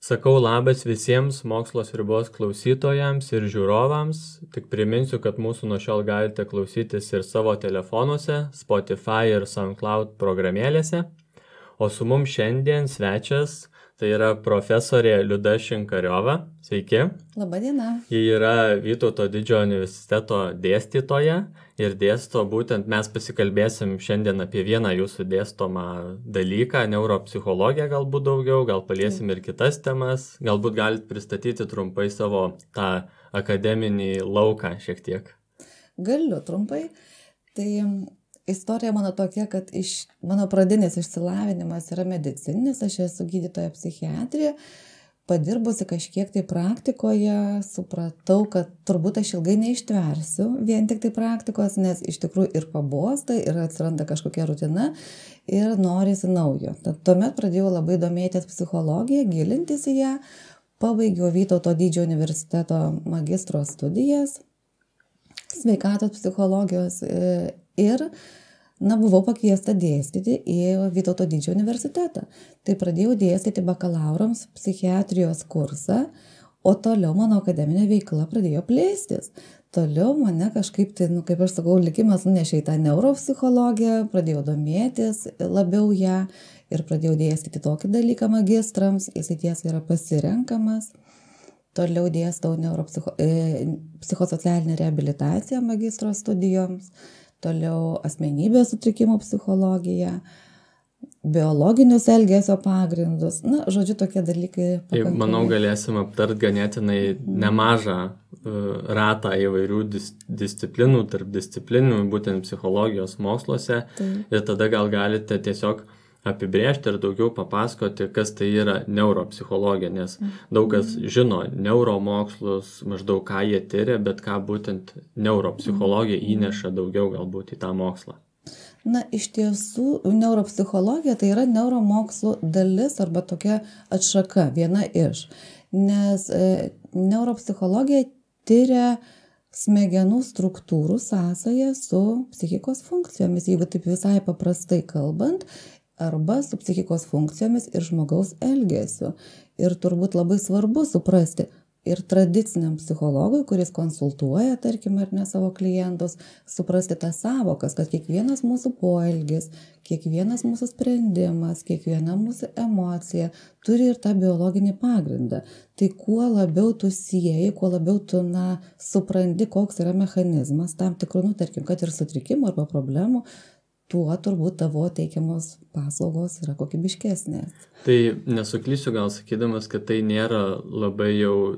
Sakau labas visiems Mokslo sriubos klausytojams ir žiūrovams. Tik priminsiu, kad mūsų nuo šiol galite klausytis ir savo telefonuose, Spotify ir SoundCloud programėlėse. O su mums šiandien svečias, tai yra profesorė Liuda Šinkariova. Sveiki. Labadiena. Ji yra Vytauto didžiojo universiteto dėstytoja ir dėsto būtent, mes pasikalbėsim šiandien apie vieną jūsų dėstomą dalyką, neuropsichologiją galbūt daugiau, gal paliesim ir kitas temas, galbūt galite pristatyti trumpai savo tą akademinį lauką šiek tiek. Galiu trumpai. Tai istorija mano tokia, kad mano pradinis išsilavinimas yra medicininis, aš esu gydytoja psichiatrija. Padirbusi kažkiek tai praktikoje, supratau, kad turbūt aš ilgai neištversiu vien tik tai praktikos, nes iš tikrųjų ir pabosta, ir atsiranda kažkokia rutina ir norisi naujo. Tuomet pradėjau labai domėtis psichologiją, gilintis į ją, pabaigiau Vytauto didžiojo universiteto magistro studijas, sveikatos psichologijos ir buvau pakviesta dėstyti į Vytauto didžiojo universitetą. Tai pradėjau dėstyti bakalaurams psichiatrijos kursą, o toliau mano akademinė veikla pradėjo plėstis. Toliau mane kažkaip, kaip aš sakau, likimas nunešė į tą neuropsichologiją, pradėjau domėtis labiau ją ir pradėjau dėstyti tokį dalyką magistrams, jis tiesa yra pasirenkamas. Toliau dėstau psichosocialinę reabilitaciją magistro studijoms. Toliau asmenybės sutrikimų psichologija, biologinius elgesio pagrindus. Žodžiu, tokie dalykai. Manau, galėsim aptart ganėtinai nemažą ratą įvairių disciplinų, tarp disciplinų, būtent psichologijos moksluose. Ir tada gal galite tiesiog apibrėžti ir daugiau papasakoti, kas tai yra neuropsichologija, nes daug kas žino neuromokslus, maždaug ką jie tyria, bet ką būtent neuropsichologija įneša daugiau galbūt į tą mokslą. Iš tiesų, neuropsichologija tai yra neuromokslų dalis arba tokia atšaka, viena iš. Nes neuropsichologija tyria smegenų struktūrų sąsają su psichikos funkcijomis, jeigu taip visai paprastai kalbant, arba su psichikos funkcijomis ir žmogaus elgesiu. Ir turbūt labai svarbu suprasti ir tradiciniam psichologui, kuris konsultuoja, tarkim, ar ne savo klientus, suprasti tas savokas, kad kiekvienas mūsų poelgis, kiekvienas mūsų sprendimas, kiekviena mūsų emocija turi ir tą biologinį pagrindą. Tai kuo labiau tu sieji, kuo labiau tu supranti, koks yra mechanizmas tam tikrų, tarkim, kad ir sutrikimų arba problemų, tuo turbūt tavo teikiamos paslaugos yra kokybiškesnės. Tai nesuklysiu gal sakydamas, kad tai nėra labai jau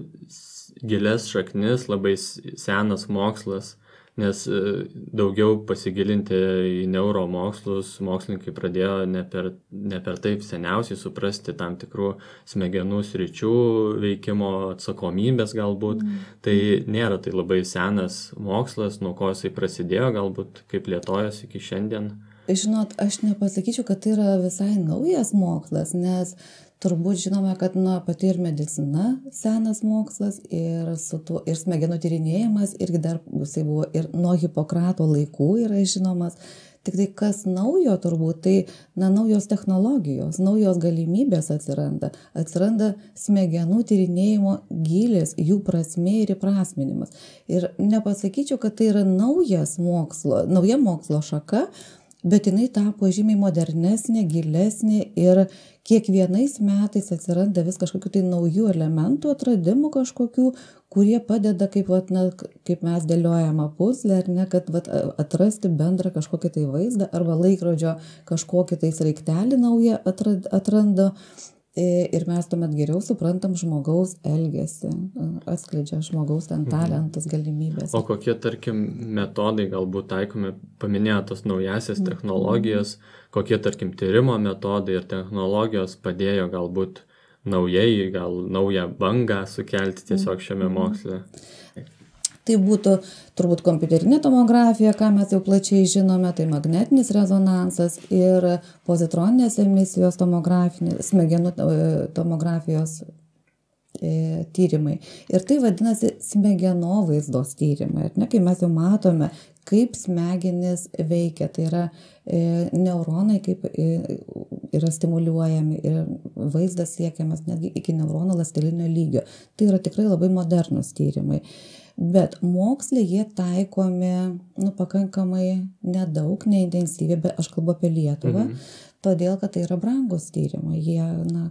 gilias šaknis, labai senas mokslas, nes daugiau pasigilinti į neuromokslus mokslininkai pradėjo ne per taip seniausiai suprasti tam tikrų smegenų sričių veikimo atsakomybės galbūt. Tai nėra tai labai senas mokslas, nuo ko jisai prasidėjo, galbūt kaip plėtojosi iki šiandien. Žinot, aš nepasakyčiau, kad tai yra visai naujas mokslas, nes turbūt žinome, kad pati ir medicina senas mokslas ir smegenų tyrinėjimas irgi dar jisai buvo ir nuo Hipokrato laikų yra žinomas. Tik tai kas naujo turbūt, tai naujos technologijos, naujos galimybės atsiranda. Atsiranda smegenų tyrinėjimo gylis, jų prasmė ir įprasminimas. Ir nepasakyčiau, kad tai yra nauja mokslo šaka, bet jinai tapo žymiai modernesnė, gilesnė ir kiekvienais metais atsiranda vis kažkokių tai naujų elementų, atradimų kažkokių, kurie padeda, kaip mes dėliojame puzlę, ar ne, kad atrasti bendrą kažkokį tai vaizdą arba laikrodžio kažkokį tai sraigtelį naują atranda. Ir mes tuomet geriau suprantam žmogaus elgesį, atskleidžia žmogaus talentus, galimybės. O kokie, tarkim, metodai galbūt taikomi, paminėjo tos naujasias technologijas, kokie, tarkim, tyrimo metodai ir technologijos padėjo galbūt naujai, gal naują bangą sukelti tiesiog šiame moksle? Tai būtų turbūt kompiuterinė tomografija, ką mes jau plačiai žinome, tai magnetinis rezonansas ir pozitroninės emisijos smegenų tomografijos tyrimai. Ir tai vadinasi smegenovaizdos tyrimai. Kai mes jau matome, kaip smegenys veikia. Tai yra neuronai, kaip yra stimuliuojami ir vaizdas siekiamas netgi iki neuronų ląstelinio lygio. Tai yra tikrai labai modernūs tyrimai. Bet moksle jie taikomi pakankamai nedaug, neintensyviai, bet aš kalbu apie Lietuvą, todėl, kad tai yra brangus tyrimai, jie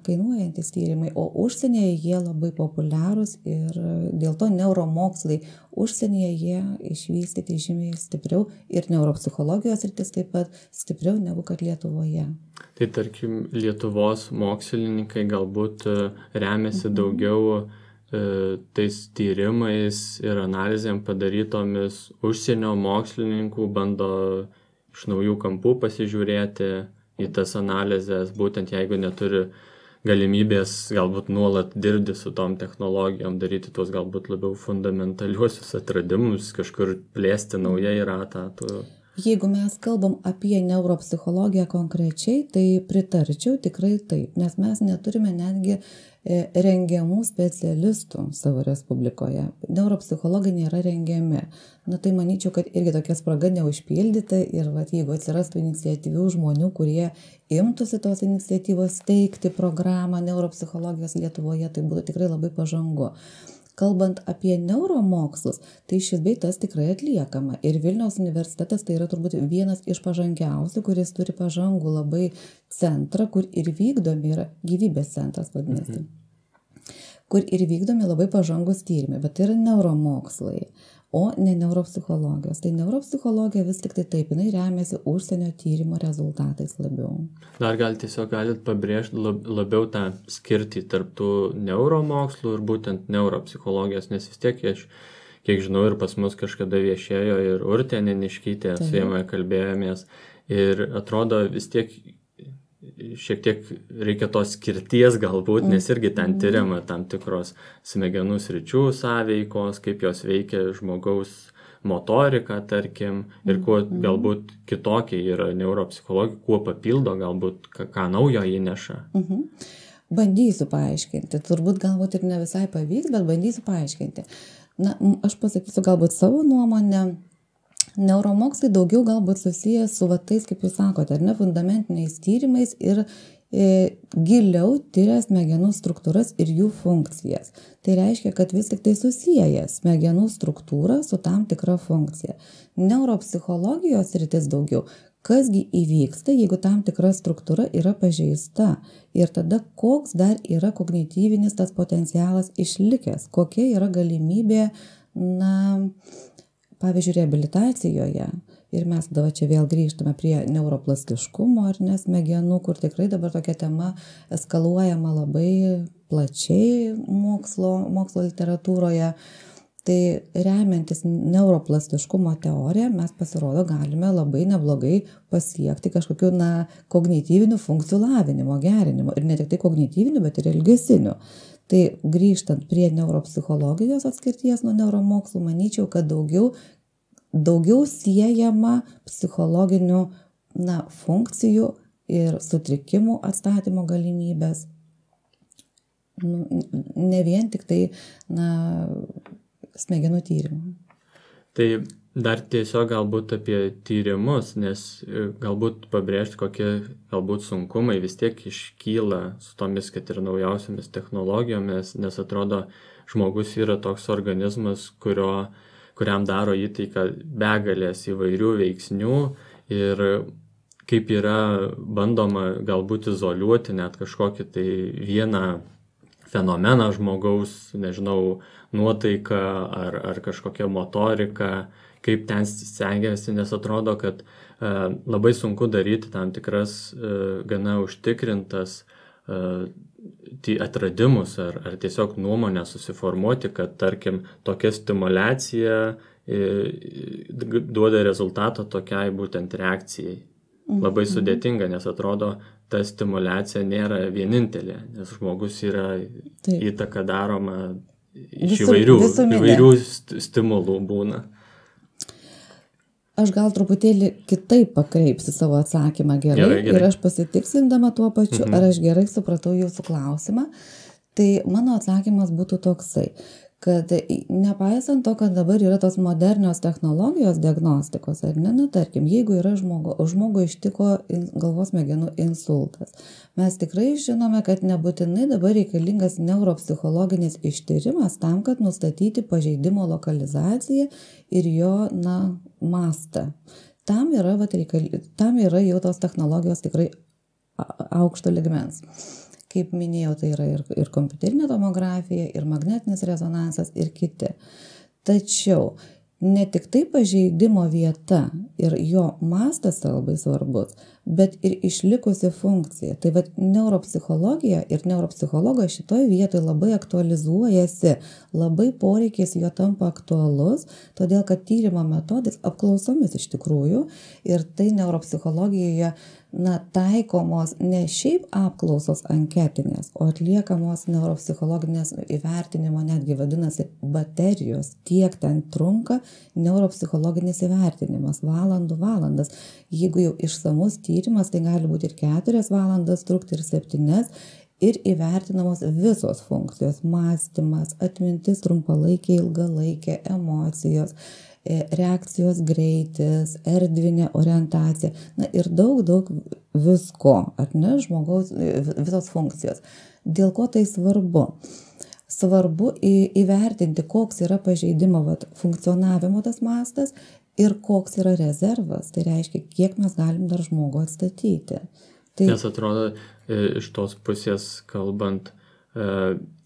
kainuojantis tyrimai, o užsienyje jie labai populiarūs ir dėl to neuromokslai užsienyje jie išvystyti žymiai stipriau ir neuropsichologijos sritis taip pat stipriau negu kad Lietuvoje. Tai tarkim, Lietuvos mokslininkai galbūt remiasi daugiau tais tyrimais ir analizėm padarytomis užsienio mokslininkų, bando iš naujų kampų pasižiūrėti į tas analizės, būtent jeigu neturi galimybės galbūt nuolat dirbti su tom technologijom, daryti tuos galbūt labiau fundamentaliuosius atradimus, kažkur plėsti naujai ratą. Jeigu mes kalbam apie neuropsichologiją konkrečiai, tai pritarčiau tikrai taip, nes mes neturime netgi rengiamų specialistų savo Respublikoje. Neuropsichologai nėra rengiami. Tai manyčiau, kad irgi tokia spraga neužpildyta ir jeigu atsirastų iniciatyvių žmonių, kurie imtųsi tos iniciatyvos steigti programą neuropsichologijos Lietuvoje, tai būtų tikrai labai pažangu. Kalbant apie neuromokslus, tai šis bei tas tikrai atliekama. Ir Vilniaus universitetas tai yra turbūt vienas iš pažangiausių, kuris turi pažangų labai centrą, kur ir vykdomi yra gyvybės centras vadinasi. Kur ir vykdomi labai pažangus tyrimai, bet tai yra neuromokslai, o ne neuropsichologijos. Tai neuropsichologija vis tik tai taip, jinai remiasi užsienio tyrimo rezultatais labiau. Dar galit pabrėžti labiau tą skirtį tarp tų neuromokslų ir būtent neuropsichologijos, nes vis tiek, kiek žinau, ir pas mus kažkada viešėjo ir Urtė Neniškytė, su jame kalbėjomės, ir atrodo vis tiek šiek tiek reikia tos skirties galbūt, nes irgi ten tyriama tam tikros smegenų sričių sąveikos, kaip jos veikia žmogaus motoriką, tarkim, ir kuo galbūt kitokie yra neuropsichologija, kuo papildo galbūt, ką naujo įneša. Bandysiu paaiškinti, turbūt galbūt ir ne visai pavyks, bet bandysiu paaiškinti. Aš pasakysiu galbūt savo nuomonę. Neuromokslai daugiau galbūt susijęs su tais, kaip jūs sakote, ar ne, fundamentiniais tyrimais ir giliau tyria smegenų struktūras ir jų funkcijas. Tai reiškia, kad vis tik tai susieja smegenų struktūrą su tam tikra funkcija. Neuropsichologijos sritis daugiau, kasgi įvyksta, jeigu tam tikra struktūra yra pažeista ir tada koks dar yra kognityvinis tas potencialas išlikęs, kokia yra galimybė, pavyzdžiui, reabilitacijoje, ir mes dabar čia vėl grįžtame prie neuroplastiškumo ar ne smegenų, kur tikrai dabar tokia tema eskaluojama labai plačiai mokslo literatūroje. Tai remiantis neuroplastiškumo teoriją, mes pasirodo galime labai neblogai pasiekti kažkokių kognityvinių funkcijų lavinimo, gerinimo. Ir ne tik tai kognityvinių, bet ir elgesinių. Tai grįžtant prie neuropsichologijos atskirties nuo neuromokslų, manyčiau, kad daugiau siejama psichologinių funkcijų ir sutrikimų atstatymo galimybės. Ne vien tik tai smegenų tyrimų. Tai dar tiesiog galbūt apie tyrimus, nes galbūt pabrėžti, kokie galbūt sunkumai vis tiek iškyla su tomis, kad ir naujausiamis technologijomis, nes atrodo, žmogus yra toks organizmas, kuriam daro įtaiką begalės įvairių veiksnių ir kaip yra bandoma galbūt izoliuoti net kažkokį tai vieną fenomeną žmogaus, nežinau, nuotaiką ar kažkokią motoriką, kaip ten stengiasi, nes atrodo, kad labai sunku daryti tam tikras gana užtikrintas atradimus ar tiesiog nuomonę susiformuoti, kad, tarkim, tokia stimulacija duoda rezultatą tokiai būtent reakcijai. Labai sudėtinga, nes atrodo, ta stimulacija nėra vienintelė, nes žmogus yra įtaka daroma iš įvairių stimulų būna. Aš gal truputėlį kitaip pakreipsiu savo atsakymą gerai. Ir aš pasitikslindama tuo pačiu, ar aš gerai supratau jūsų klausimą, tai mano atsakymas būtų toksai. kad nepaisant to, kad dabar yra tos modernios technologijos diagnostikos, ar ne, tarkim, jeigu yra žmogų ištiko galvos smegenų insultas, mes tikrai žinome, kad nebūtinai dabar reikalingas neuropsichologinis ištyrimas tam, kad nustatyti pažeidimo lokalizaciją ir jo, mastą. Tam yra jau tos technologijos tikrai aukšto lygmens. Kaip minėjau, tai yra ir kompiuterinė tomografija, ir magnetinis rezonansas, ir kiti. Tačiau ne tik tai pažeidimo vieta ir jo mastas yra labai svarbus, bet ir išlikusi funkcija. Tai neuropsichologija ir neuropsichologas šitoje vietoje labai aktualizuojasi, labai poreikis jo tampa aktualus, todėl kad tyrimo metodais apklausomis iš tikrųjų ir tai neuropsichologijoje taikomos ne šiaip apklausos anketinės, o atliekamos neuropsichologinės įvertinimo, netgi vadinasi baterijos, tiek ten trunka neuropsichologinis įvertinimas, valandas. Jeigu jau išsamus tyrimas, tai gali būti ir 4 valandas trukti, ir 7, ir įvertinamos visos funkcijos, mąstymas, atmintis trumpalaikė, ilgalaikė, emocijos, reakcijos greitis, erdvinė orientacija, ir daug visko, ar ne, žmogaus visos funkcijos. Dėl ko tai svarbu? Svarbu įvertinti, koks yra pažeidimo funkcionavimo tas mastas ir koks yra rezervas, tai reiškia, kiek mes galim dar žmogų atstatyti. Nes atrodo, iš tos pusės kalbant,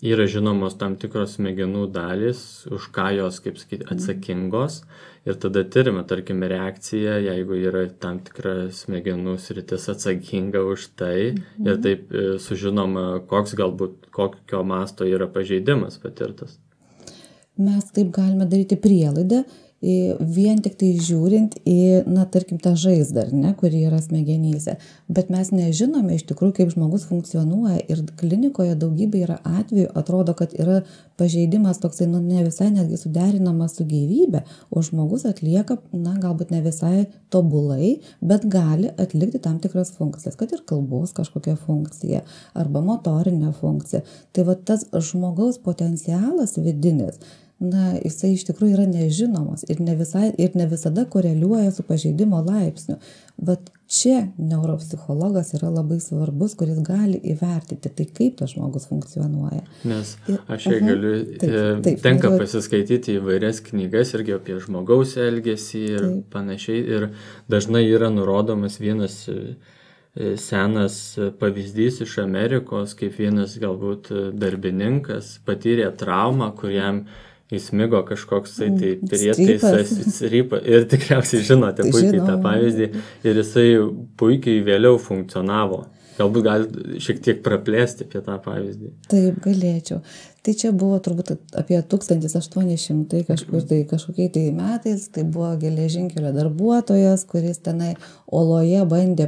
yra žinomos tam tikros smegenų dalys, už ką jos, kaip sakyti, atsakingos, ir tada tyrime, tarkim, reakcija, jeigu yra tam tikra smegenų sritis atsakinga už tai, ir taip sužinoma, kokio masto yra pažeidimas patirtas. Mes taip galime daryti prielaidą, vien tik tai žiūrint į, tarkim, tą žaizdą, kuri yra smegenyse. Bet mes nežinome iš tikrųjų, kaip žmogus funkcionuoja, ir klinikoje daugybė yra atvejų, atrodo, kad yra pažeidimas toksai, ne visai netgi suderinamas su gyvybe, o žmogus atlieka, galbūt ne visai tobulai, bet gali atlikti tam tikras funkcijas, kad ir kalbos kažkokia funkcija, arba motorinė funkcija. Tai tas žmogaus potencialas vidinis, jisai iš tikrųjų yra nežinomas ir ne visada koreliuoja su pažeidimo laipsniu. Bet čia neuropsichologas yra labai svarbus, kuris gali įvertinti, tai kaip tas žmogus funkcionuoja. Nes aš galiu, tenka pasiskaityti įvairias knygas irgi apie žmogaus elgesį ir panašiai, ir dažnai yra nurodomas vienas senas pavyzdys iš Amerikos, kaip vienas galbūt darbininkas patyrė traumą, kuriam įsmigo kažkoks tai prietaisas ir tikriausiai žinote puikiai tą pavyzdį, ir jisai puikiai vėliau funkcionavo. Galbūt gali šiek tiek praplėsti apie tą pavyzdį. Taip, galėčiau. Tai čia buvo turbūt apie 1800 kažkokiai metais, tai buvo geležinkelio darbuotojas, kuris tenai oloje bandė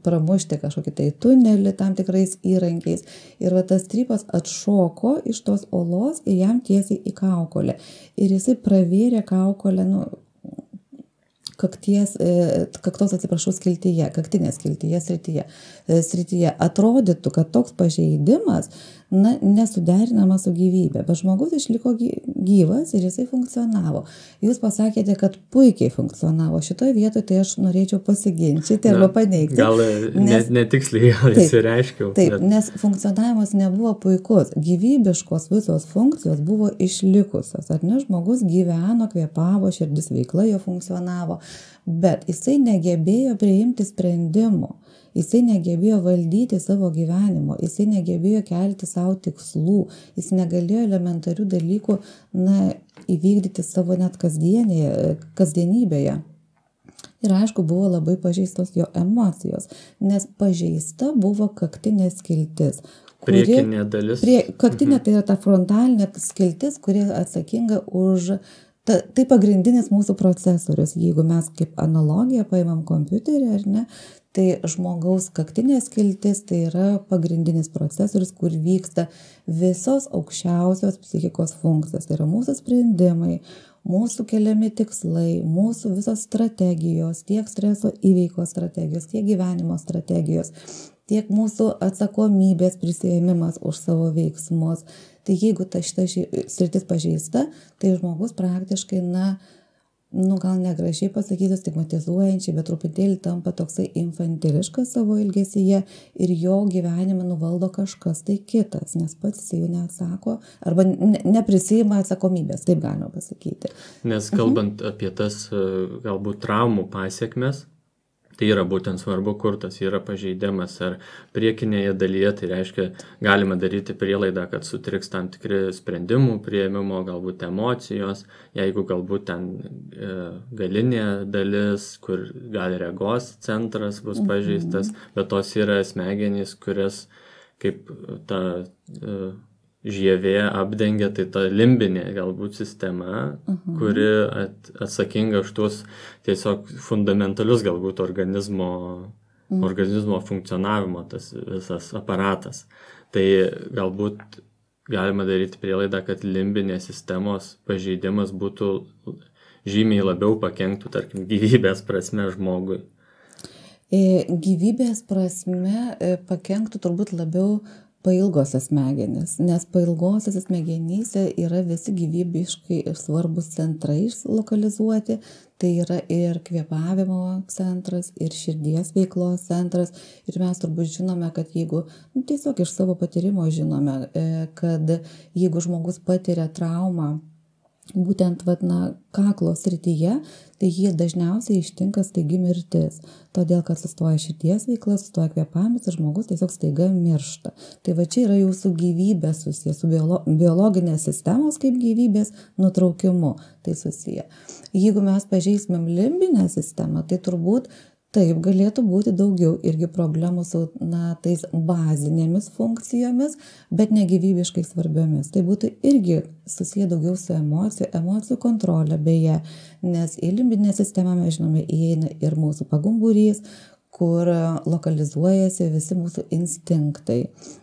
pramušti kažkokį tai tunelį tam tikrais įrankiais. Ir tas strypas atšoko iš tos olos ir jam tiesiai į kaukolę. Ir jisai pravėrė kaukolę, kaktinės skiltyje srityje. Atrodytų, kad toks pažeidimas nesuderinamas su gyvybė, bet žmogus išliko gyvas ir jisai funkcionavo. Jūs pasakėte, kad puikiai funkcionavo. Šitoje vietoje tai aš norėčiau pasiginčyti arba paneigti. Gal netiksliai įsireiškiau. Taip, nes funkcionavimas nebuvo puikus. Gyvybiškos visos funkcijos buvo išlikusios. Ar ne, žmogus gyveno, kvėpavo, širdis veikla jo funkcionavo, bet jisai negebėjo priimti sprendimų. Jisai negebėjo valdyti savo gyvenimo, jisai negebėjo kelti savo tikslų, jis negalėjo elementarių dalykų įvykdyti savo net kasdienybėje. Ir aišku, buvo labai pažeistos jo emocijos, nes pažeista buvo kaktinė skiltis. Priekinė dalis. Kaktinė tai yra ta frontalinė skiltis, kuri atsakinga už... Tai pagrindinis mūsų procesorius. Jeigu mes kaip analogiją paimam kompiuterį, ar ne, tai žmogaus kaktinė skiltis tai yra pagrindinis procesorius, kur vyksta visos aukščiausios psichikos funkcijos. Tai yra mūsų sprendimai, mūsų keliami tikslai, mūsų visos strategijos, tiek streso įveikos strategijos, tiek gyvenimo strategijos. tiek mūsų atsakomybės prisiėmimas už savo veiksmus. Tai jeigu šita sritis pažeista, tai žmogus praktiškai, gal negražiai pasakysiu, stigmatizuojančiai, bet truputėlį tampa toksai infantiliškas savo elgesyje ir jo gyvenime nuvaldo kažkas tai kitas, nes pats jis jau neatsako arba neprisiima atsakomybės, taip galima pasakyti. Nes kalbant apie tas galbūt traumų pasiekmes, tai yra būtent svarbu, kur tas yra pažeidimas, ar priekinėje dalyje, tai reiškia, galima daryti prielaidą, kad sutriks tam tikri sprendimų priėmimo, galbūt emocijos, jeigu galbūt ten galinė dalis, kur gal regos centras bus pažeistas, bet tos yra smegenys, kurias kaip ta žievė apdengia, tai ta limbinė galbūt sistema, kuri atsakinga už tuos tiesiog fundamentalius galbūt organizmo funkcionavimo, tas visas aparatas. Tai galbūt galima daryti prielaidą, kad limbinės sistemos pažeidimas būtų žymiai labiau pakenktų, tarkim, gyvybės prasme žmogui. Gyvybės prasme pakenktų turbūt labiau pailgosios smegenys, nes pailgosios smegenyse yra visi gyvybiškai svarbus centrai lokalizuoti, tai yra ir kvėpavimo centras, ir širdies veiklos centras, ir mes turbūt žinome, kad jeigu, tiesiog iš savo patyrimo žinome, kad jeigu žmogus patiria traumą, būtent kaklo srityje, tai jį dažniausiai ištinka staigi mirtis, todėl kad sustoja širdies veikla, sustoja kvėpavimas ir žmogus tiesiog staiga miršta. Tai čia yra jau su gyvybė susiję, su biologinės sistemos kaip gyvybės nutraukimu tai susiję. Jeigu mes pažeismėm limbinę sistemą, tai turbūt taip galėtų būti daugiau irgi problemų su tais bazinėmis funkcijomis, bet negyvybiškai svarbiomis. Tai būtų irgi susiję daugiau su emocijų kontrolė beje, nes į limbinę sistemą mes žinome įeina ir mūsų pagumburys, kur lokalizuojasi visi mūsų instinktai.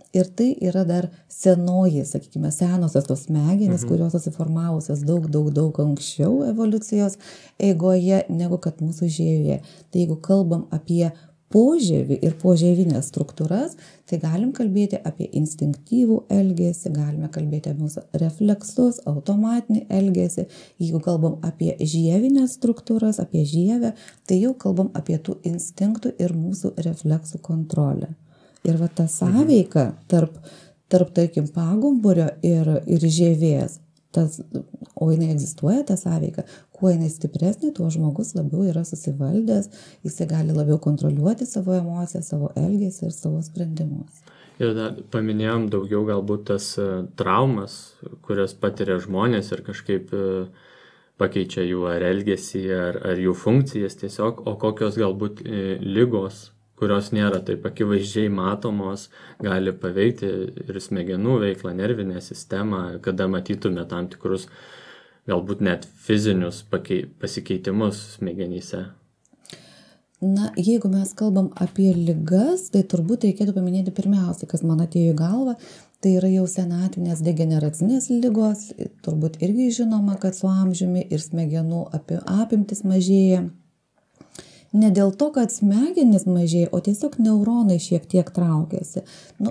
Ir tai yra dar senoji, sakykime, senosios tos smegenys, kurios susiformavusios daug anksčiau evoliucijos eigoje negu kad mūsų žievė. Tai jeigu kalbam apie požievį ir požievinės struktūras, tai galim kalbėti apie instinktyvų elgesį, galime kalbėti apie mūsų refleksus, automatinį elgesį. Jeigu kalbam apie žievinės struktūras, apie žievę, tai jau kalbam apie tų instinktų ir mūsų refleksų kontrolę. Ir ta sąveika tarp tarkim, pagumburio ir žievės, o jinai egzistuoja, ta sąveika, kuo jinai stipresnė, tuo žmogus labiau yra susivaldęs, jisai gali labiau kontroliuoti savo emocijas, savo elgesį ir savo sprendimus. Ir dar paminėjom daugiau galbūt tas traumas, kurias patiria žmonės ir kažkaip pakeičia jų ar elgesį, ar jų funkcijas tiesiog, o kokios galbūt ligos, kurios nėra taip akivaizdžiai matomos, gali paveikti ir smegenų veiklą, nervinę sistemą, kada matytume tam tikrus galbūt net fizinius pasikeitimus smegenyse. Jeigu mes kalbam apie ligas, tai turbūt reikėtų paminėti pirmiausia, kas man atėjo į galvą, tai yra jau senatvinės degeneracinės ligos, turbūt irgi žinoma, kad su amžiumi ir smegenų apimtis mažėja. Ne dėl to, kad smegenys mažėja, o tiesiog neuronai šiek tiek traukiasi.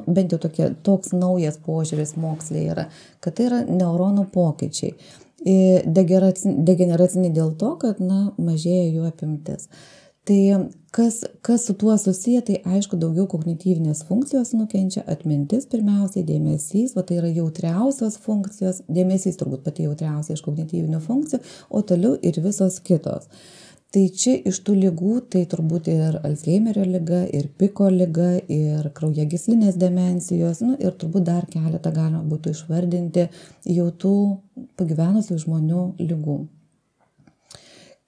Bent jau toks naujas požiūris moksle yra, kad tai yra neuronų pokyčiai. Degeneraciniai dėl to, kad mažėja jų apimtis. Tai kas su tuo susiję, tai aišku daugiau kognityvinės funkcijos nukenčia, atmintis pirmiausiai, dėmesys, tai yra jautriausios funkcijos, dėmesys turbūt pati jautriausia iš kognityvinių funkcijų, o toliau ir visos kitos. Tai čia iš tų ligų, tai turbūt ir Alzheimerio liga, ir Piko liga, ir kraujagyslinės demencijos, ir turbūt dar keletą galima būtų išvardinti jau tų pagyvenusių žmonių ligų.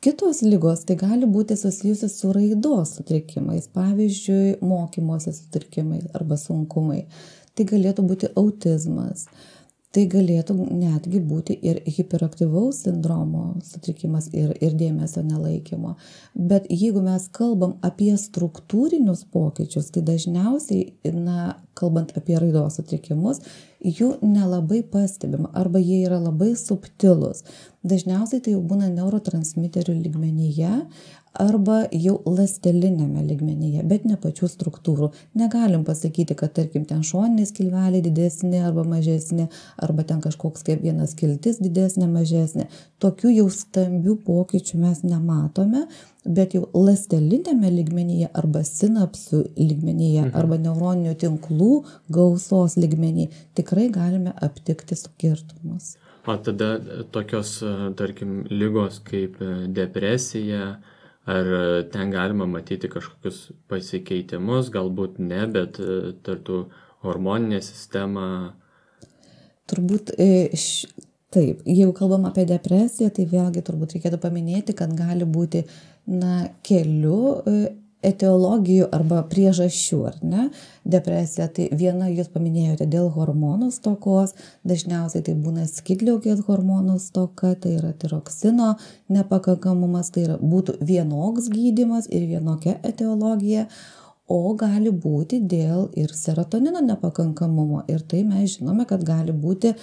Kitos ligos tai gali būti susijusi su raidos sutrikimais, pavyzdžiui, mokymosi sutrikimais arba sunkumai. Tai galėtų būti autizmas. Tai galėtų netgi būti ir hiperaktyvaus sindromo sutrikimas ir dėmesio nelaikymo. Bet jeigu mes kalbam apie struktūrinius pokyčius, tai dažniausiai, kalbant apie raidos sutrikimus, jų nelabai pastebima arba jie yra labai subtilūs. Dažniausiai tai jau būna neurotransmiterių lygmenyje arba jau ląsteliniame lygmenyje, bet ne pačių struktūrų. Negalim pasakyti, kad tarkim ten šoniniai skilveliai didesni arba mažesni, arba ten kažkoks kaip viena skiltis didesnė, mažesnė. Tokių jau stambių pokyčių mes nematome, bet jau ląsteliniame lygmenyje arba sinapsių lygmenyje arba neuroninių tinklų gausos lygmenyje tikrai galime aptikti skirtumus. O tada tokios, tarkim, ligos kaip depresija, ar ten galima matyti kažkokius pasikeitimus, galbūt ne, bet tartų hormoninė sistema? Turbūt taip, jeigu kalbam apie depresiją, tai vėlgi turbūt reikėtų paminėti, kad gali būti kelių etiologijų arba priežasčių, ar ne? Depresija, tai viena jūs paminėjote dėl hormonų stokos, dažniausiai tai būna skydliaukės hormonų stoka, tai yra tiroksino nepakankamumas, tai yra būtų vienoks gydymas ir vienokia etiologija, o gali būti dėl ir serotonino nepakankamumo. Ir tai mes žinome, kad gali būti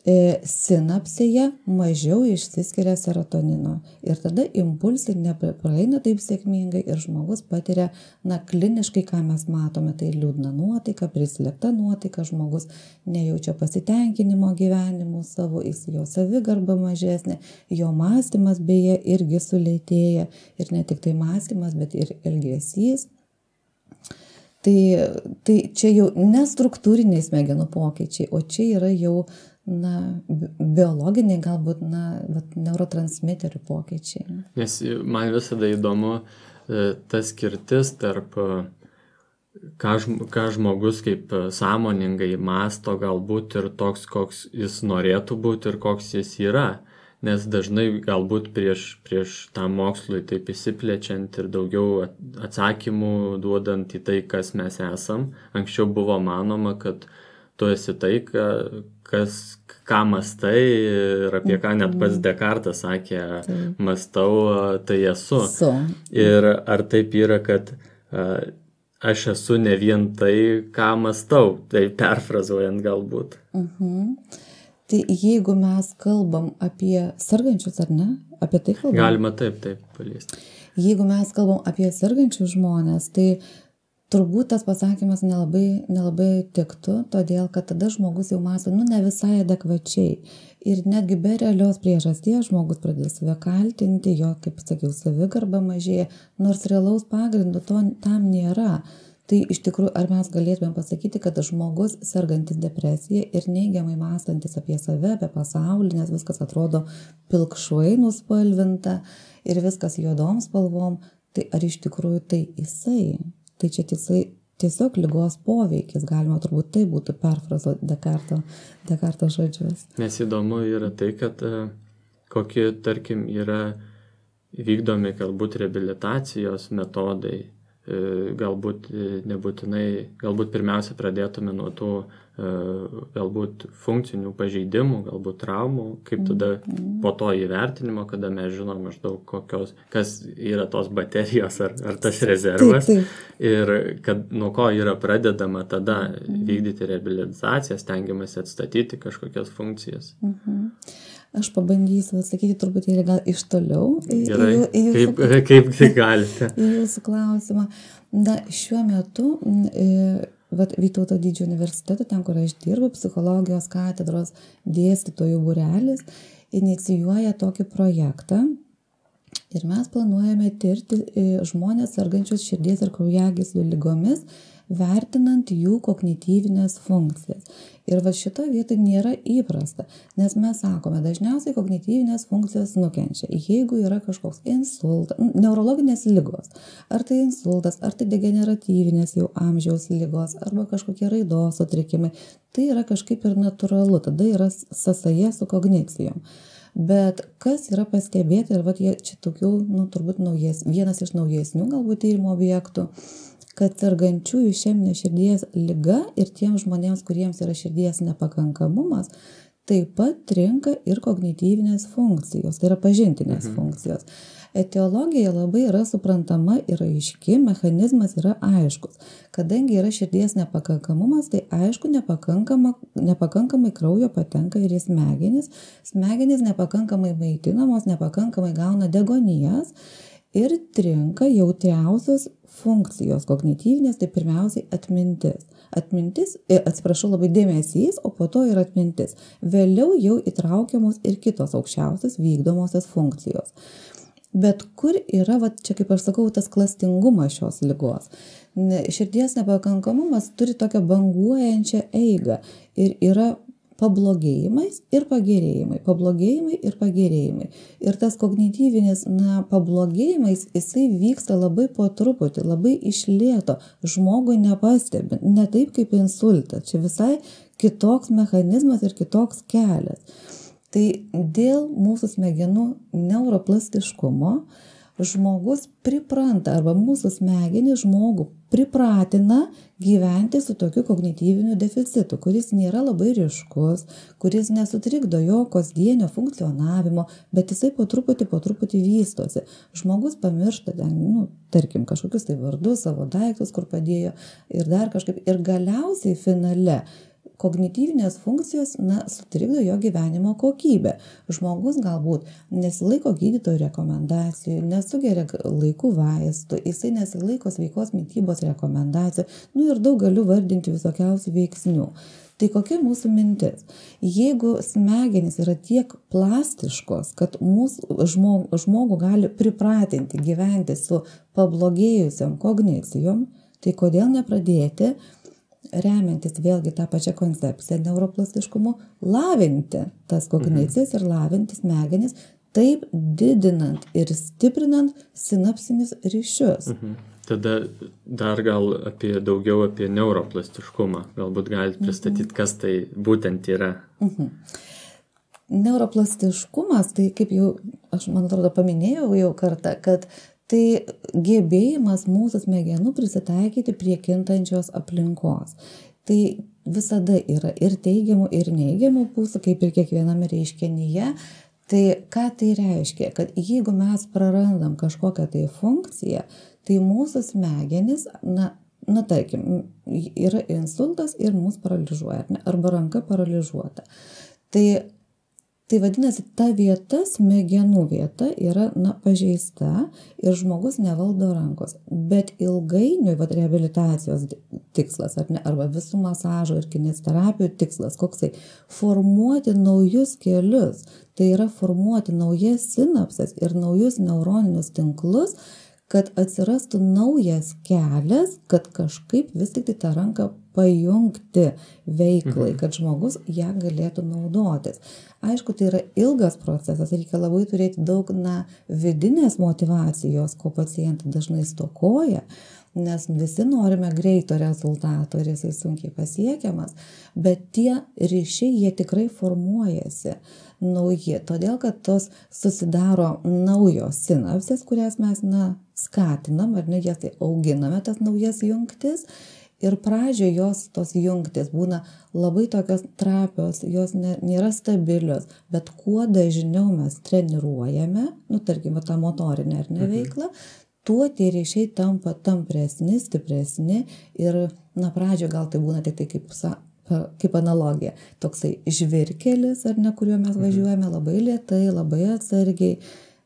sinapsėje mažiau išsiskiria serotonino. Ir tada impulsai nepraeina taip sėkmingai ir žmogus patiria, kliniškai, ką mes matome, tai liūdna nuotaika, prislėgta nuotaika, žmogus nejaučia pasitenkinimo gyvenimu savo, jo savigarba mažesnė, jo mąstymas beje irgi sulėtėja ir ne tik tai mąstymas, bet ir elgesys. Tai čia jau nestruktūriniai smegenų pokyčiai, o čia yra jau biologiniai, galbūt neurotransmiterių pokyčiai. Nes man visada įdomu ta skirtis tarp ką žmogus kaip sąmoningai mąsto galbūt ir toks, koks jis norėtų būti ir koks jis yra. Nes dažnai galbūt prieš tą mokslui taip įsiplečiant ir daugiau atsakymų duodant į tai, kas mes esam. Anksčiau buvo manoma, kad tu esi tai, ką mastai ir apie ką net pats Descartes sakė, mastau, tai esu. Ir ar taip yra, kad aš esu ne vien tai, ką mastau, tai perfrazuojant galbūt. Tai jeigu mes kalbam apie sergančius, ar ne? Apie tai kalbam? Galima taip paliesti. Jeigu mes kalbam apie sergančius žmonės, tai turbūt tas pasakymas nelabai tiktų, todėl kad tada žmogus jau mąsto, ne visai adekvačiai. Ir netgi be realios priežasties žmogus pradės save kaltinti, jo, kaip sakiau, savigarba mažėja, nors realaus pagrindo tam nėra. Tai iš tikrųjų, ar mes galėtume pasakyti, kad žmogus sergantis depresija ir neigiamai mąstantis apie save, apie pasaulį, nes viskas atrodo pilkšvai nuspalvinta ir viskas juodom spalvom, tai ar iš tikrųjų tai jisai? Tai čia tiesiog ligos poveikis, galima turbūt tai būtų perfrazuoti Descartes žodžius. Nes įdomu yra tai, kad kokie, tarkim, yra vykdomi galbūt reabilitacijos metodai, galbūt nebūtinai, galbūt pirmiausia pradėtume nuo tų galbūt funkcinių pažeidimų, galbūt traumų, kaip tada po to įvertinimo, kada mes žinom maždaug kas yra tos baterijos ar tas rezervas. Ir kad nuo ko yra pradedama tada vykdyti reabilitaciją, stengiamasi atstatyti kažkokias funkcijas. Aš pabandysiu atsakyti truputėlį gal iš toliau. Gerai, kaip tai galite? Į jūsų klausimą. Šiuo metu Vytauto Didžiojo universiteto, ten, kur aš dirbu, psichologijos katedros dėstytojų būrelis, inicijuoja tokį projektą. Ir mes planuojame tirti žmonės sergančius širdies ir kraujagyslių ligomis, vertinant jų kognityvinės funkcijas. Ir šito vietoj nėra įprasta, nes mes sakome, dažniausiai kognityvinės funkcijos nukenčia. Jeigu yra kažkoks insultas, neurologinės ligos, ar tai insultas, ar tai degeneratyvinės jau amžiaus ligos, arba kažkokie raidos sutrikimai, tai yra kažkaip ir natūralu, tada yra sąsaja su kognicijom. Bet kas yra pastebėta, ir jie čia tokių, turbūt vienas iš naujesnių galbūt tyrimo objektų, kad sergančiųjų išeminė širdies liga ir tiems žmonėms, kuriems yra širdies nepakankamumas, taip pat trinka ir kognityvinės funkcijos, tai yra pažintinės funkcijos. Etiologija labai yra suprantama ir aiški, mechanizmas yra aiškus. Kadangi yra širdies nepakankamumas, tai aišku, nepakankamai kraujo patenka ir į smegenis. Smegenys nepakankamai maitinamos, nepakankamai gauna deguonies. ir trinka jautriausios funkcijos kognityvinės, tai pirmiausiai atmintis. Labai dėmesys, o po to ir atmintis. Vėliau jau įtraukiamos ir kitos aukščiausios vykdomosios funkcijos. Bet kur yra, čia kaip aš sakau, tas klastingumas šios ligos? Širdies nepakankamumas turi tokią banguojančią eigą ir yra pablogėjimais ir pagerėjimai. Ir tas kognityvinis pablogėjimais, jisai vyksta labai po truputį, labai iš lėto, žmogui nepastebint, ne taip kaip insultas. Čia visai kitoks mechanizmas ir kitoks kelias. Tai dėl mūsų smegenų neuroplastiškumo žmogus pripranta arba mūsų smegenys žmogų pripratina gyventi su tokiu kognityviniu deficitu, kuris nėra labai ryškus, kuris nesutrikdo jo kasdienio funkcionavimo, bet jisai po truputį vystosi. Žmogus pamiršta tarkim, kažkokius tai vardus, savo daiktus, kur padėjo ir dar kažkaip. Ir galiausiai finale kognityvinės funkcijos sutrikdo jo gyvenimo kokybę. Žmogus galbūt nesilaiko gydytojų rekomendacijų, nesugeria laikų vaistų, jisai nesilaiko sveikos mitybos rekomendacijų, ir daug galiu vardinti visokiausių veiksnių. Tai kokia mūsų mintis? Jeigu smegenys yra tiek plastiškos, kad mūsų žmogų gali pripratinti gyventi su pablogėjusiom kognicijom, tai kodėl nepradėti remiantis vėlgi tą pačią koncepciją neuroplastiškumu, lavinti tas kognicijas ir lavinti smegenis, taip didinant ir stiprinant sinapsinius ryšius. Tada dar gal daugiau apie neuroplastiškumą. Galbūt galite pristatyti, kas tai būtent yra. Neuroplastiškumas, tai kaip jau, aš man atrodo paminėjau jau kartą, kad tai gebėjimas mūsų smegenų prisitaikyti prie kintančios aplinkos. Tai visada yra ir teigiamų, ir neigiamų pusių, kaip ir kiekviename reiškinyje. Tai ką tai reiškia? Kad jeigu mes prarandam kažkokią tai funkciją, tai mūsų smegenys, tarkim, yra insultas ir mus paralyžuoja, arba ranka paralyžuota. Tai vadinasi, ta vieta, smegenų vieta yra pažeista ir žmogus nevaldo rankos. Bet ilgainiui reabilitacijos tikslas, arba visų masažo ir kineziterapijų tikslas, koksai, formuoti naujus kelius. Tai yra formuoti naujas sinapses ir naujus neuroninius tinklus, kad atsirastų naujas kelias, kad kažkaip vis tik tą ranką pajungti veiklai, kad žmogus ją galėtų naudotis. Aišku, tai yra ilgas procesas, reikia labai turėti daug vidinės motyvacijos, ko pacientai dažnai stokoja, nes visi norime greito rezultato ir jisai sunkiai pasiekiamas, bet tie ryšiai, jie tikrai formuojasi nauji, todėl kad tos susidaro naujos sinapsės, kurias mes skatinam, jas tai auginame, tas naujas jungtis. Ir pradžioje jos tos jungtis būna labai tokios trapios, jos nėra stabilios, bet kuo dažniau mes treniruojame, tarkim, tą motorinę veiklą, tuo tie ryšiai tampa tampresni, stipresni ir pradžioje gal tai būna tik tai kaip analogija, toksai žvyrkelis, kuriuo mes važiuojame labai lėtai, labai atsargiai.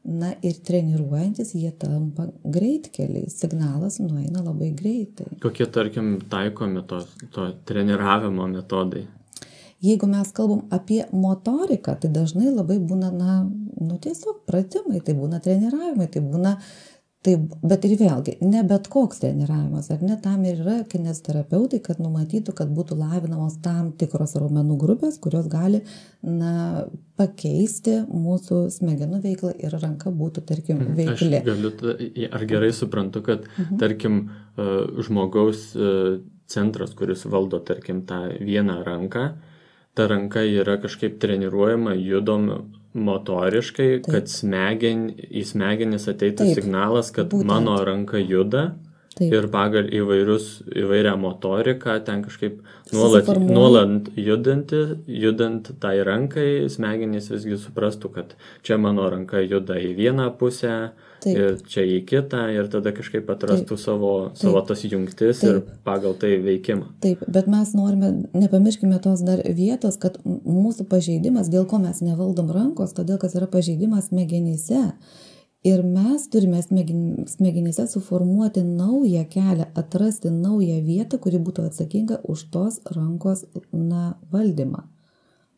Ir treniruojantis jie tampa greitkeliais, signalas nueina labai greitai. Kokie, tarkim, taikomi to treniravimo metodai? Jeigu mes kalbam apie motoriką, tai dažnai labai būna, tiesiog pratimai, tai būna treniravimai, tai būna, bet ir vėlgi, ne bet koks treniravimas, tam ir yra kineziterapeutai, kad numatytų, kad būtų lavinamos tam tikros raumenų grupės, kurios gali, pakeisti mūsų smegenų veiklą ir ranka būtų, tarkim, veikli. Ar gerai suprantu, kad, tarkim, žmogaus centras, kuris valdo, tarkim, tą vieną ranką, ta ranka yra kažkaip treniruojama, judoma motoriškai, kad į smegenis ateitų signalas, kad mano ranka juda. Taip. Ir pagal įvairią motoriką, ten kažkaip nuolat judant tai rankai, smegenys visgi suprastų, kad čia mano ranka juda į vieną pusę, ir čia į kitą, ir tada kažkaip atrastų savo tas jungtis ir pagal tai veikimą. Taip, bet mes norime, nepamirškime tos dar vietos, kad mūsų pažeidimas, dėl ko mes nevaldom rankos, todėl kad yra pažeidimas smegenyse. Ir mes turime smegenyse suformuoti naują kelią, atrasti naują vietą, kuri būtų atsakinga už tos rankos valdymą.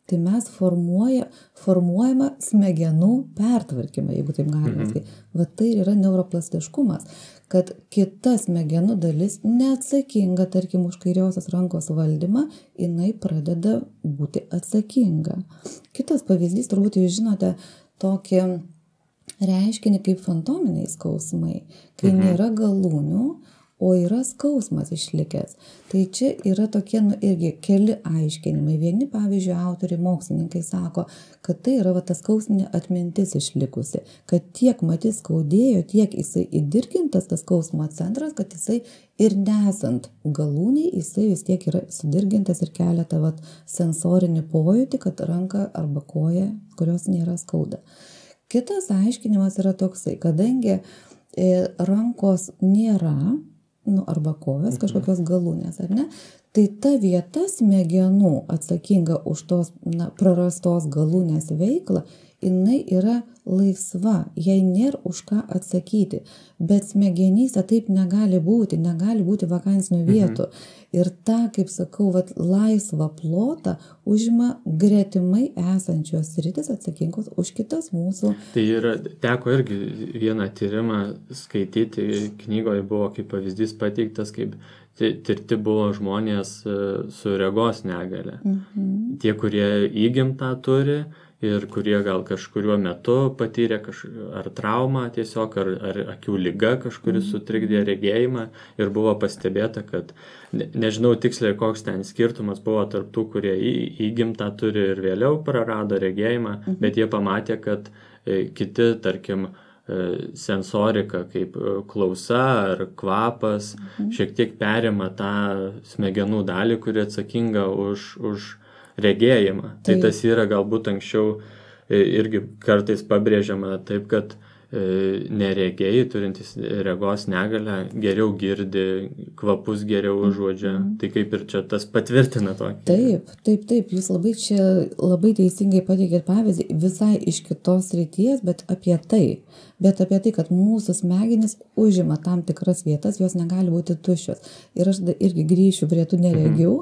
Tai mes formuojame smegenų pertvarkymą, jeigu taip galima sakyti. Va tai yra neuroplastiškumas, kad kita smegenų dalis neatsakinga, tarkim, už kairiosios rankos valdymą, jinai pradeda būti atsakinga. Kitas pavyzdys, turbūt jūs žinote tokį reiškinį kaip fantominiai skausmai, kai nėra galūnių, o yra skausmas išlikęs. Tai čia yra tokie irgi keli aiškinimai. Vieni, pavyzdžiui, autoriai, mokslininkai sako, kad tai yra ta skausminė atmintis išlikusi, kad tiek matys skaudėjo, tiek jisai įdirgintas tas skausmo centras, kad jisai ir nesant galūniai, jisai vis tiek yra sudirgintas ir kelia tą sensorinį pojūtį, kad ranka arba koja, kurios nėra skauda. Kitas aiškinimas yra toksai, kadangi rankos nėra, arba kojos, kažkokios galūnės, ar ne? Tai ta vieta smegenų atsakinga už tos prarastos galūnės veiklą, jinai yra laisva, jai nėra už ką atsakyti. Bet smegenyse taip negali būti vakansinių vietų. Ir tą, kaip sakau, laisvą plotą užima gretimai esančios sritis atsakingos už kitas mūsų. Tai yra, teko irgi vieną tyrimą skaityti, knygoje buvo kaip pavyzdys pateiktas, kaip tirti buvo žmonės su regos negale. Tie, kurie įgimtą turi ir kurie gal kažkuriuo metu patyrė ar traumą tiesiog, ar akių liga kažkuris sutrikdė regėjimą ir buvo pastebėta, kad nežinau tiksliai, koks ten skirtumas buvo tarp tų, kurie įgimtą turi ir vėliau prarado regėjimą, bet jie pamatė, kad kiti, tarkim, sensorika kaip klausa ar kvapas šiek tiek perima tą smegenų dalį, kuri atsakinga už regėjimą. Tai tas yra galbūt anksčiau irgi kartais pabrėžiama taip, kad neregėjai turintys regos negalę geriau girdi, kvapus geriau užuodžia. Tai kaip ir čia tas patvirtina tokį. Taip. Jūs labai teisingai pateikėt pavyzdį visai iš kitos srities, bet apie tai, kad mūsų smegenys užima tam tikras vietas, jos negali būti tuščios. Ir aš irgi grįšiu prie tų neregių.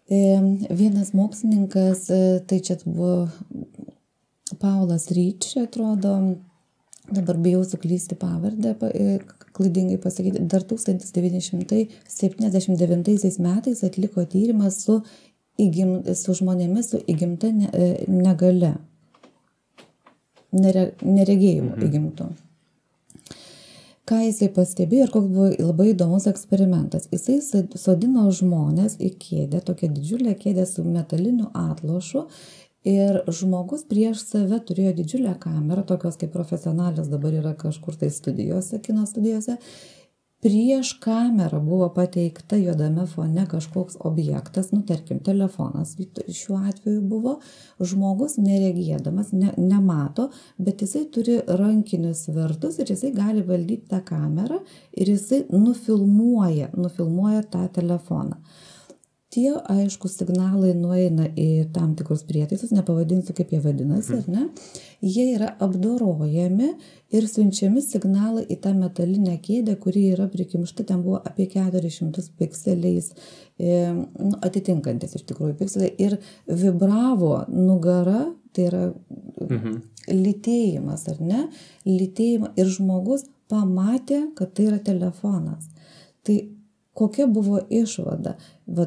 Vienas mokslininkas, tai čia buvo Paulas Reach, atrodo, dabar bijau suklysti pavardę, klaidingai pasakyti, dar 1979 metais atliko tyrimą su žmonėmis su įgimta negale, neregėjimu įgimtu. Ką jisai pastebėjo ir koks buvo labai įdomus eksperimentas. Jisai sodino žmonės į kėdę, tokią didžiulę kėdę su metaliniu atlošu ir žmogus prieš save turėjo didžiulę kamerą, tokios kaip profesionalios dabar yra kažkur tai studijose, kino studijose. Prieš kamerą buvo pateikta juodame fone kažkoks objektas, tarkim, telefonas šiuo atveju buvo, žmogus neregėdamas, nemato, bet jisai turi rankinius svertus ir jisai gali valdyti tą kamerą ir jisai nufilmuoja tą telefoną. Tie, aišku, signalai nueina į tam tikrus prietaisus, nepavadinsiu, kaip jie vadinasi, ar ne? Jie yra apdorojami ir siunčiami signalai į tą metalinę kėdę, kuri yra prikimšta, ten buvo apie 400 pikseliais, atitinkantis iš tikrųjų pikseliai, ir vibravo nugara, tai yra lytėjimas, ar ne? Lytėjimą ir žmogus pamatė, kad tai yra telefonas. Tai kokia buvo išvada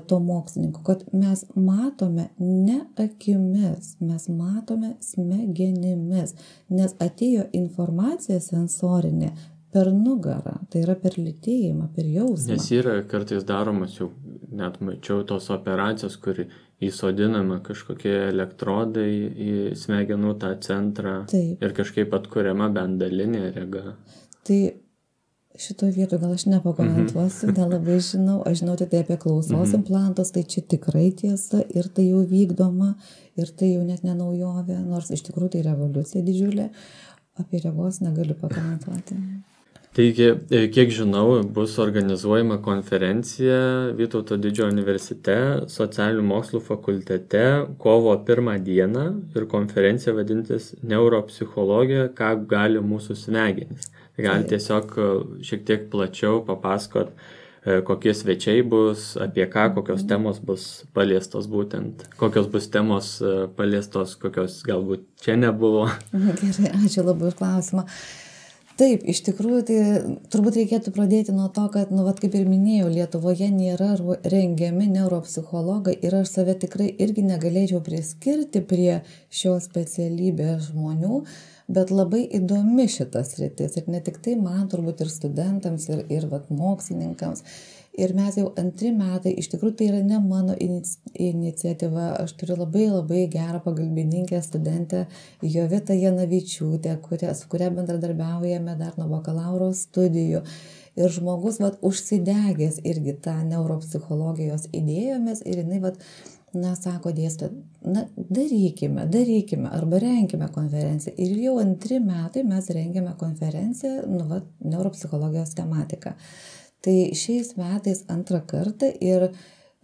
to mokslininko, kad mes matome ne akimis, mes matome smegenimis, nes atėjo informacija sensorinė per nugarą, tai yra per lytėjimą, per jausmą. Nes yra kartais daromas, jau net mačiau tos operacijos, kur įsodinama kažkokie elektrodai į smegenų tą centrą. Taip. Ir kažkaip atkuriama bent dalinė rega. Tai šitoje vietoje gal aš nepakomentuosiu, nelabai žinau. Aš žinau tik tai apie klausos implantus, tai čia tikrai tiesa ir tai jau vykdoma ir tai jau net ne naujovė, nors iš tikrųjų tai revoliucija didžiulė. Apie regos negaliu pakomentuoti. Taigi, kiek žinau, bus organizuojama konferencija Vytauto Didžiojo universitete, socialinių mokslų fakultete kovo 1 dieną ir konferencija vadintis Neuropsichologija, ką gali mūsų smegenys. Tai gali tiesiog šiek tiek plačiau papasakot, kokie svečiai bus, apie ką, kokios temos bus paliestos būtent, kokios bus temos paliestos, kokios galbūt čia nebuvo. Gerai, ačiū labai už klausimą. Taip, iš tikrųjų, tai turbūt reikėtų pradėti nuo to, kad, kaip ir minėjau, Lietuvoje nėra rengiami neuropsichologai ir aš save tikrai irgi negalėčiau priskirti prie šios specialybės žmonių, bet labai įdomi šitas sritis ir ne tik tai man, turbūt ir studentams, ir mokslininkams. Ir mes jau 2 metai, iš tikrųjų tai yra ne mano iniciatyva, aš turiu labai gerą pagalbininkę studentę Jovitą Janavičiūtę, su kuria bendradarbiaujame dar nuo bakalauro studijų. Ir žmogus užsidegęs irgi tą neuropsichologijos idėjomis ir jinai sako dėstytoja, darykime arba renkime konferenciją. Ir jau 2 metai mes rengiame konferenciją, neuropsichologijos tematika. Tai šiais metais 2 kartą ir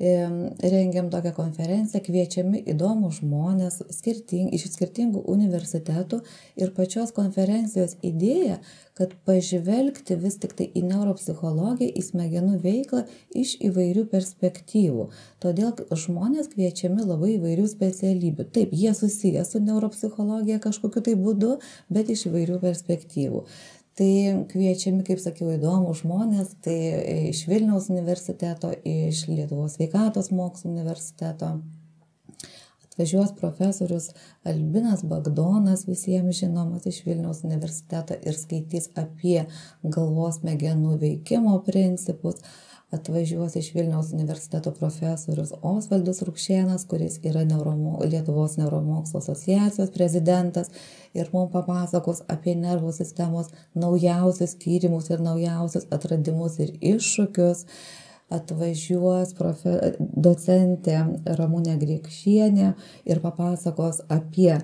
rengiam tokią konferenciją, kviečiami įdomūs žmonės iš skirtingų universitetų ir pačios konferencijos idėja, kad pažvelgti vis tik tai į neuropsichologiją, į smegenų veiklą iš įvairių perspektyvų. Todėl žmonės kviečiami labai įvairių specialybių. Taip, jie susiję su neuropsichologija kažkokiu tai būdu, bet iš įvairių perspektyvų. Tai kviečiami, kaip sakiau, įdomūs žmonės, tai iš Vilniaus universiteto, iš Lietuvos sveikatos mokslų universiteto. Atvažiuos profesorius Albinas Bagdonas, visiems žinomas iš Vilniaus universiteto ir skaitys apie galvos smegenų veikimo principus. Atvažiuos iš Vilniaus universiteto profesorius Osvaldas Rukšėnas, kuris yra Lietuvos neuromokslo asociacijos prezidentas ir mums papasakos apie nervų sistemos naujausius tyrimus ir naujausius atradimus ir iššūkius. Atvažiuos docentė Ramunė Griekšienė ir papasakos apie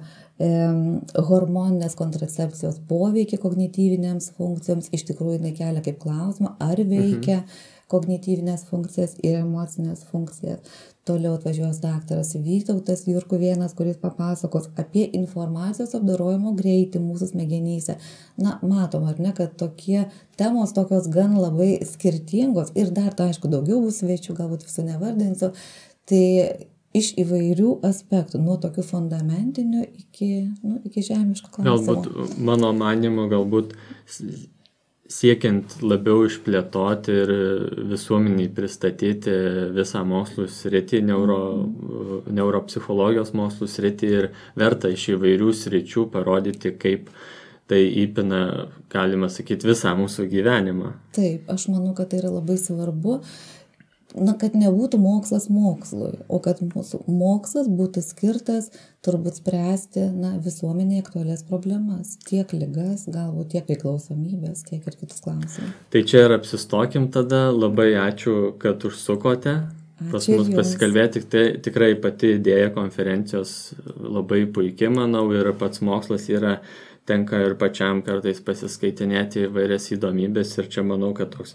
hormoninės kontracepcijos poveikį kognityvinėms funkcijoms. Iš tikrųjų, jinai kelia kaip klausimą, ar veikia kognityvinės funkcijas ir emocinės funkcijas. Toliau atvažiuos daktaras Vytautas Jurkuvėnas, kuris papasakos apie informacijos apdorojimo greitį mūsų smegenyse. Matom, ar ne, kad tokie temos tokios gan labai skirtingos ir dar, aišku, daugiau bus svečių, galbūt visų nevardinsiu. Tai iš įvairių aspektų, nuo tokių fundamentinių iki žemiškų klausimų. Galbūt, mano manymu, siekiant labiau išplėtoti ir visuomeniai pristatyti visą mokslų sritį, neuropsichologijos mokslų sritį ir verta iš įvairių sričių parodyti, kaip tai įpina, galima sakyti, visą mūsų gyvenimą. Taip, aš manau, kad tai yra labai svarbu, kad nebūtų mokslas mokslui, o kad mūsų mokslas būtų skirtas turbūt spręsti visuomenėje aktualias problemas, tiek ligas, galbūt tiek priklausomybės, tiek ir kitus klausimus. Tai čia ir apsistokim tada. Labai ačiū, kad užsukote pas mus pasikalbėti. Tikrai pati idėja konferencijos labai puikiai, manau, ir pats mokslas tenka ir pačiam kartais pasiskaitinėti įvairias įdomybės ir čia manau, kad toks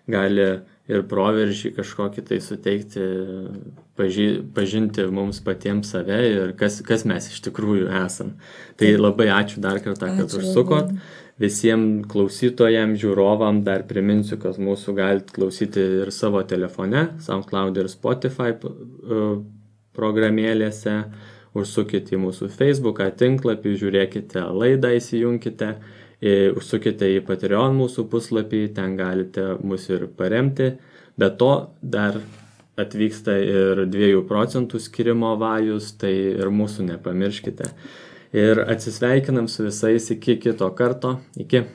gali ir proveržį kažkokį tai suteikti, pažinti mums patiems save ir kas mes iš tikrųjų esam. Tai labai ačiū dar kartą, kad užsukot. Visiems klausytojams, žiūrovam dar priminsiu, kad mūsų galite klausyti ir savo telefone, SoundCloud ir Spotify programėlėse. Užsukite į mūsų Facebooką tinklapį, žiūrėkite laidą, įsijunkite. Užsukite į Patreon mūsų puslapį, ten galite mus ir paremti. Be to dar atvyksta ir 2% skirimo vajus, tai ir mūsų nepamirškite. Ir atsisveikinam su visais iki kito karto. Iki.